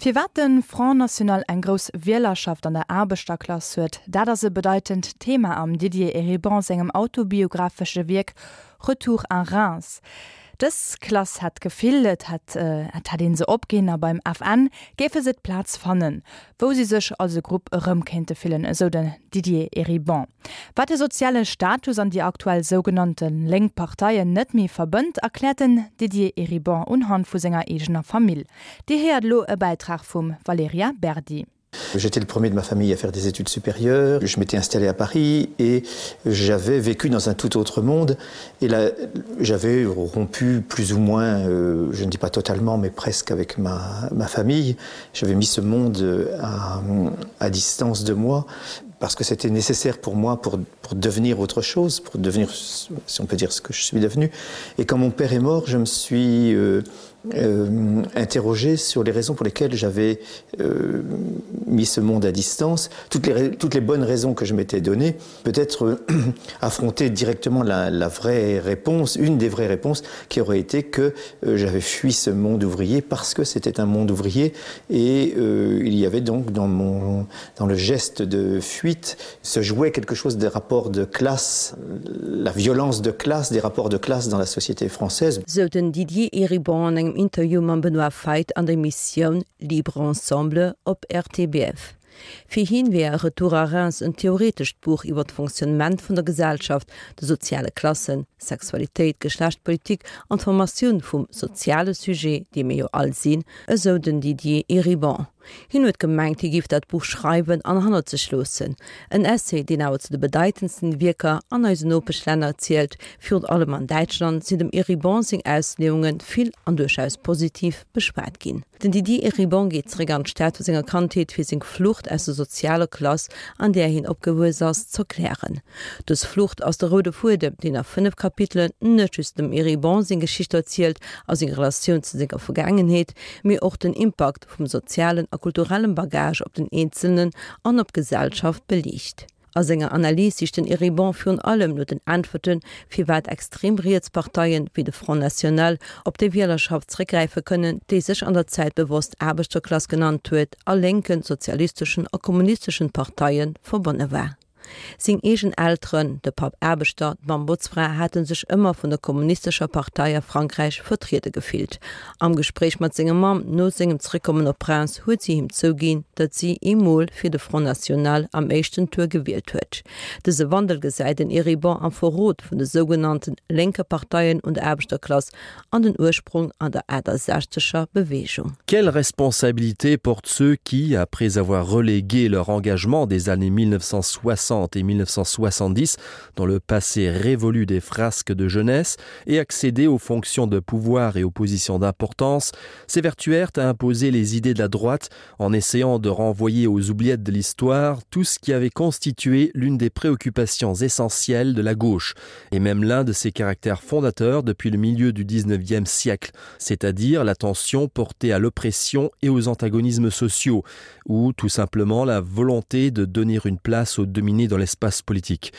Firwat de Front National eng grouss Wielerschaft an der Aarbechterklass huet, dat ass e bedeitend Thema am Didier Eribon sengem autobiographesche Wierk Retour à Reims. Dës Klass hätt d'Gefill, et hätt et hätt ee se opginn a beim FN géife se d'Plaz fannen, wou si sech als e Grupp erëm kéinte fillen, esou den Didier Eribon. Wat de soziale Status an déi aktuell sougenannte lénk Parteien net méi verbënnt, erkläert den Didier Eribon unhand vu senger eegener Famill. Dir héiert elo e Bäitrag vum Valerija Berdi. J'étais le premier de ma famille à faire des études supérieures. Je m'étais installé à Paris et j'avais vécu dans un tout autre monde et là j'avais rompu plus ou moins euh, je ne dis pas totalement mais presque avec ma, ma famille. J'avais mis ce monde à, à distance de moi parce que c'était nécessaire pour moi pour, pour devenir autre chose, pour devenir si on peut dire ce que je suis devenu. Et quand mon père est mort, je me suis euh, euh, interrogé sur les raisons pour lesquelles j'avais euh, mis ce monde à distance, toutes les, toutes les bonnes raisons que je m'étais données, peut-être euh, affronter directement la, la vraie réponse, une des vraies réponses qui aurait été que euh, j'avais fui ce monde ouvrier parce que c'était un monde ouvrier et euh, il y avait donc dans, mon, dans le geste de fuite se jouait quelque chose des rapports de classe, la violence de classe, des rapports de classe dans la société française. Sou den Didier Eribon an engem Interview mam Benoît Feit an der Emissioun Libre Ensemble op RTBF. Fir hien wär Retour à Reims en theoretescht Buch iwwer d'Fonctionnement vun der Gesellschaft, de soziale Klassen, Sexualitéit, Geschlechtpolitik an d'Formatioun vum soziale Sujet, dee mir jo all sinn, esou den Didier Eribon. Hien huet gemengt, hie géif dat Buch schreiwen an hannert sech loossen. En Essay, deen awer zu de bedeitendsten Wierker an eisen Nopeschlänner zielt. Virun allem an Däitschland sinn dem Eribon seng Ausleeunge vill an duerchaus positiv beschwat ginn. Den Didier Eribon geet zeréck an d'Stad vu senger Kandheet, fir seng Flucht aus der sozialer Klass, an där hien opgewuess ass, z'erklären. Dës Flucht ass de roude Fuedem, deen a 5 Kapitelen net just dem Eribon seng Geschicht erzielt a seng Relatioun zu senger Vergaangenheet, mee och den Impakt vum sozialen a kulturellem Bagage op den Eenzelnen an op d'Gesellschaft beliicht. A senger Analys sicht den Eribon virun allem no den Äntwerten, firwat extrem riets Parteien, wéi de Front National, op déi Wielerschaft zeréckgräife kënnen, déi sech an der Zäit bewosst Aarbechterklass genannt huet a lénken, sozialisteschen a kommunisteschen Parteie verbonne war. Seng eegen Elteren, de Papp Aarbechter, d'Mamm Botzfra, hate sech ëmmer vun der kommunistescher Partei a Frankräich vertriede gefillt. Am Gespréich mat senger Mamm no sengem Zeréckkommen op Reims huet si him zouginn, datt si eemol fir de Front National am éischten Tour gewielt huet. Dëse Wandel gesäit den Eribon am Verrot vun de sougenannten lénke Parteien un der Aarbechterklass an den Ursprong an der 68er Bewegung. Quelle responsabilité portent ceux qui, après avoir relégué leur engagement des années 1960 et 1970 dans le passé révolu des frasques de jeunesse et accédé aux fonctions de pouvoir et aux positions d'importance, s'évertuèrent à imposer les idées de la droite en essayant de renvoyer aux oubliettes de l'histoire tout ce qui avait constitué l'une des préoccupations essentielles de la gauche et même l'un de ses caractères fondateurs depuis le milieu du 19e siècle, c'est-à-dire l'attention portée à l'oppression et aux antagonismes sociaux ou tout simplement la volonté de donner une place aux dominés dans l'espace politique.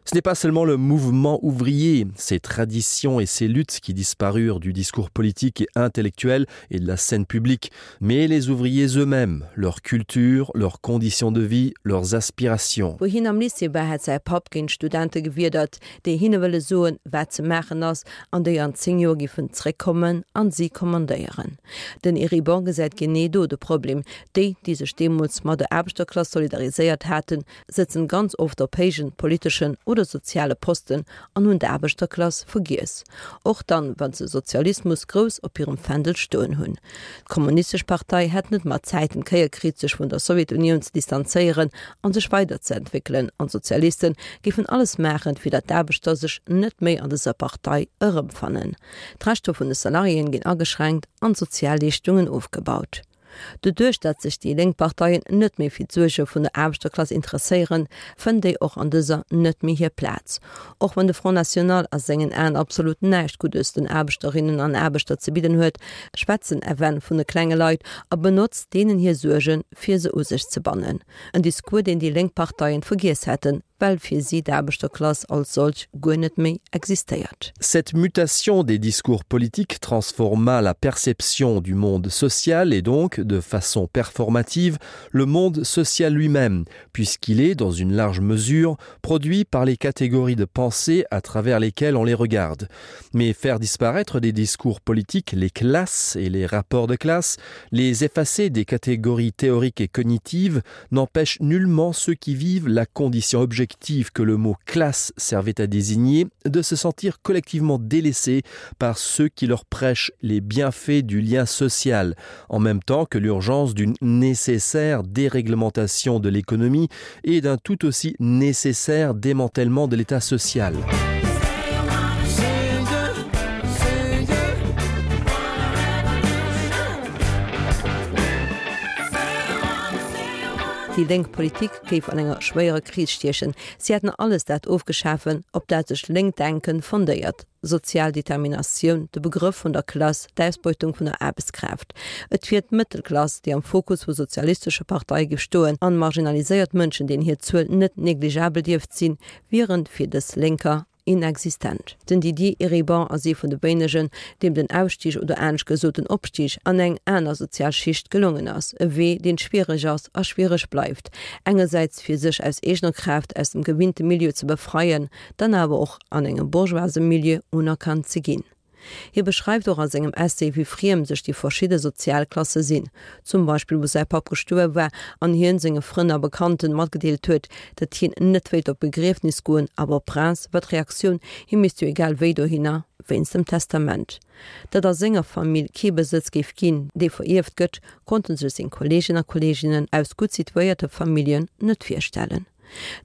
Ce n'est pas seulement le mouvement ouvrier, ses traditions et ses luttes qui disparurent du discours politique et intellectuel et de la scène publique, mais les ouvriers eux-mêmes, leur culture, leurs conditions de vie, leurs aspirations. Wou hien am Lycée war, hätt säi Papp géint Studente gewiedert, déi hinne wëlle soen, wat ze maachen ass, an déi an 10 Joer giffen zréckkommen an si kommandéieren. Den Eribon gesäit genee do de Problem, Déi, déi sech deemools mat der Aarbechterklass solidariséiert haten, sëtzen ganz oft op héijen politeschen oder soziale Posten an hunn d'Aarbechterklass vergiess, och dann, wann se Sozialismus grouss op hirem Fändel stoen hunn. D'Kommunistesch Partei hätt net mat Zäiten d'Kéier kritt, sech vun der Sowjetunioun ze distanzéieren an sech weiderzeentwéckelen, an d'Sozialisten géifen alles maachen, fir datt d'Aarbechter sech net méi an dëser Partei erëmfannen. D'Rechter vun de Salariéen ginn ageschränkt an d'Sozialleeschtungen ofgebaut. Doduerch datt sech déi lénk Parteien net méi fir d'Suerge vun der Aarbechterklass interesséieren, fënnt déi och an dëser net méi hir Plaz. Och wann de Front National a sengen Aen absolut näischt Guddes den Aarbechterinnen an Aarbechter ze bidden huet, schwätzt den FN vun de klenge Leit a benotzt deenen hir Suergen, fir se u sech ze bannen. En Discours, deen déi lénk Parteien vergiess hätten. Well fir si d'Aarbechterklass als solch guer net méi existéiert. Cette mutation des discours politiques transforma la perception du monde social et donc, de façon performative, le monde social lui-même, puisqu'il est, dans une large mesure, produit par les catégories de pensée à travers lesquelles on les regarde. Mais faire disparaître des discours politiques les classes et les rapports de classe, les effacer des catégories théoriques et cognitives n'empêche nullement ceux qui vivent la condition objective que le mot classe servait à désigner de se sentir collectivement délaissés par ceux qui leur prêchent les bienfaits du lien social, en même temps que l'urgence d'une nécessaire déréglementation de l'économie et d'un tout aussi nécessaire démantèlement de l'état social. Déi lénk Politik géif an enger schwéierer Kris stiechen. Si hätten alles dat ofgeschafen, op dat sech lénkt Denken fondéiert, sozial Determinatioun, de Begrëff vun der Klass, d'Ausbeutung vun der Aarbechtskraaft. Et wier d'Mëttelklass, déi am Fokus vu sozialistesche Parteie géif stoen, an marginaliséiert Mënschen, deenen hir Zuel net negligeabel dierft sinn, wieren fir dës Lénker inexistent. Den Didier Eribon ass ee vun de wéinegen, deem den Ausstig oder anescht gesot den Opstig an eng aner sozial Schicht gelongen ass. E Wee, deen schwiereg ass a schwiereg bleift. Engersäits fir sech aus eegener Kraaft aus dem gewinnte Milieu ze befreien, dann awer och an engem bourgeoise Milieu unerkannt ze ginn. Hie beschreift och a sengem Essay, wéi friem sech déi verschidde Sozialklasse sinn. Zum Beispill wou säi Papp gestuerwe war an hien senge Frënn a Bekannten matgedeelt huet, datt hien net wéilt op d'Begriefnis goen, awer op Reims war d'Reaktioun, hie misst jo egal wéi dohinner, wéinst dem Testament. Datt a senger Famill kee Besëtz géif ginn, dee verierft gëtt, konnte sech seng Kolleegen a Kolleeginnen aus gutt situéierte Familljen net virstellen.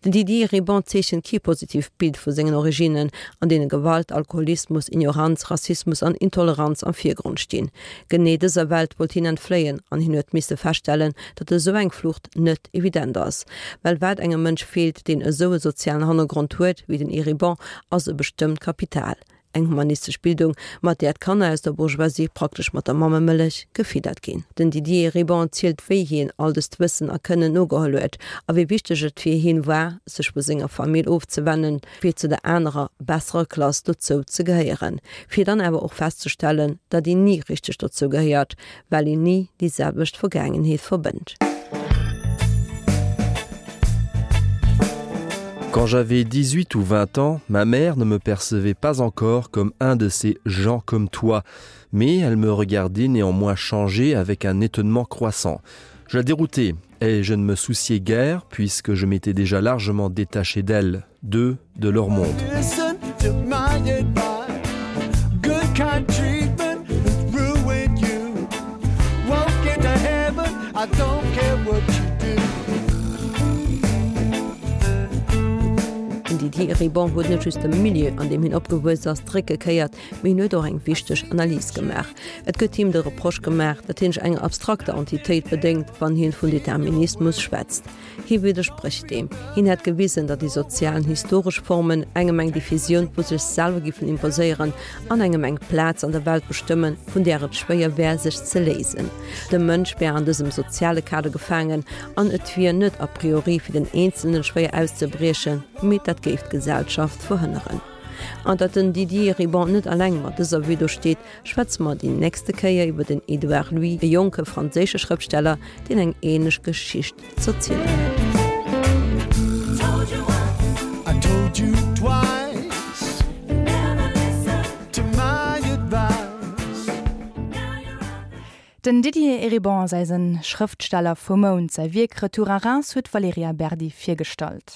Den Didier Eribon zeechent kee positiivt Bild vu sengen Originnen, an deene Gewalt, Alkoholismus, Ignoranz, Rassismus an Intoleranz am Virgrond stinn. Genee dëser Welt wollt hien entfléien an hien huet misse feststellen, datt esou eng Flucht net evident ass. Well wat engem Mënsch feelt, deen esou e sozialen Hannergrond huet wéi den Eribon, ass e bestëmmt Kapital. Eng humanistesch Bildung, mat där d'Kanner aus der Bourgeoisie praktesch mat der Mammemëllech gefiddert ginn. Den Didier Eribon zielt wéi hien all dëst Wëssen a Kënnen nogeholl huet a wéi wichteg et fir hien war, sech vu senger Famill ofzewennen, fir zu der anerer, besserer Klass dozou ze gehéieren, fir dann awer och festzestellen, datt een ni richteg dozou gehéiert, well een ni déi selwecht Vergaangenheet verbënnt. Quand j'avais 18 ou 20 ans, ma mère ne me percevait pas encore comme un de ces gens comme toi, mais elle me regardait néanmoins changer avec un étonnement croissant. Je la déroutais et je ne me souciais guère puisque je m'étais déjà largement détaché d'elle, d'eux, de leur monde. Den Didier Eribon huet net just dem Milieu, an deem hien opgewuess ass, d'Réck gekéiert, mee hien huet och eng wichteg Analys gemaach. Et gëtt him de Reproche gemaach, datt hien sech enger abstrakter Entitéit bedéngt, wann hien vun Determinismus schwätzt. Hie widdersprécht deem. Hien hätt gewisen, datt déi sozial an historesch Formen engem eng Diffusioun vu sech selwer giffen imposéieren an engem eng Plaz an der Welt bestëmmen, vun där et schwéier wär, sech ze léisen. De Mënsch wär an dësem soziale Kader gefaangen an et wier net a priori fir den Eenzelnen schwéier auszebriechen, mee dat géif d'Gesellschaft verhënneren. An datt den Didier Eribon net alleng mat dëser Vue do steet, Schwätze mer déi nächste Kéier iwwer den Edouard Louis, e jonke franséische Schrëftsteller, deen eng ähnlech Geschicht z'erzielen huet. Den Didier Eribon ass eise Schrëftsteller vum Mount. Säi Wierk Retour à Reims huet d'Valerija Berdi virgestallt.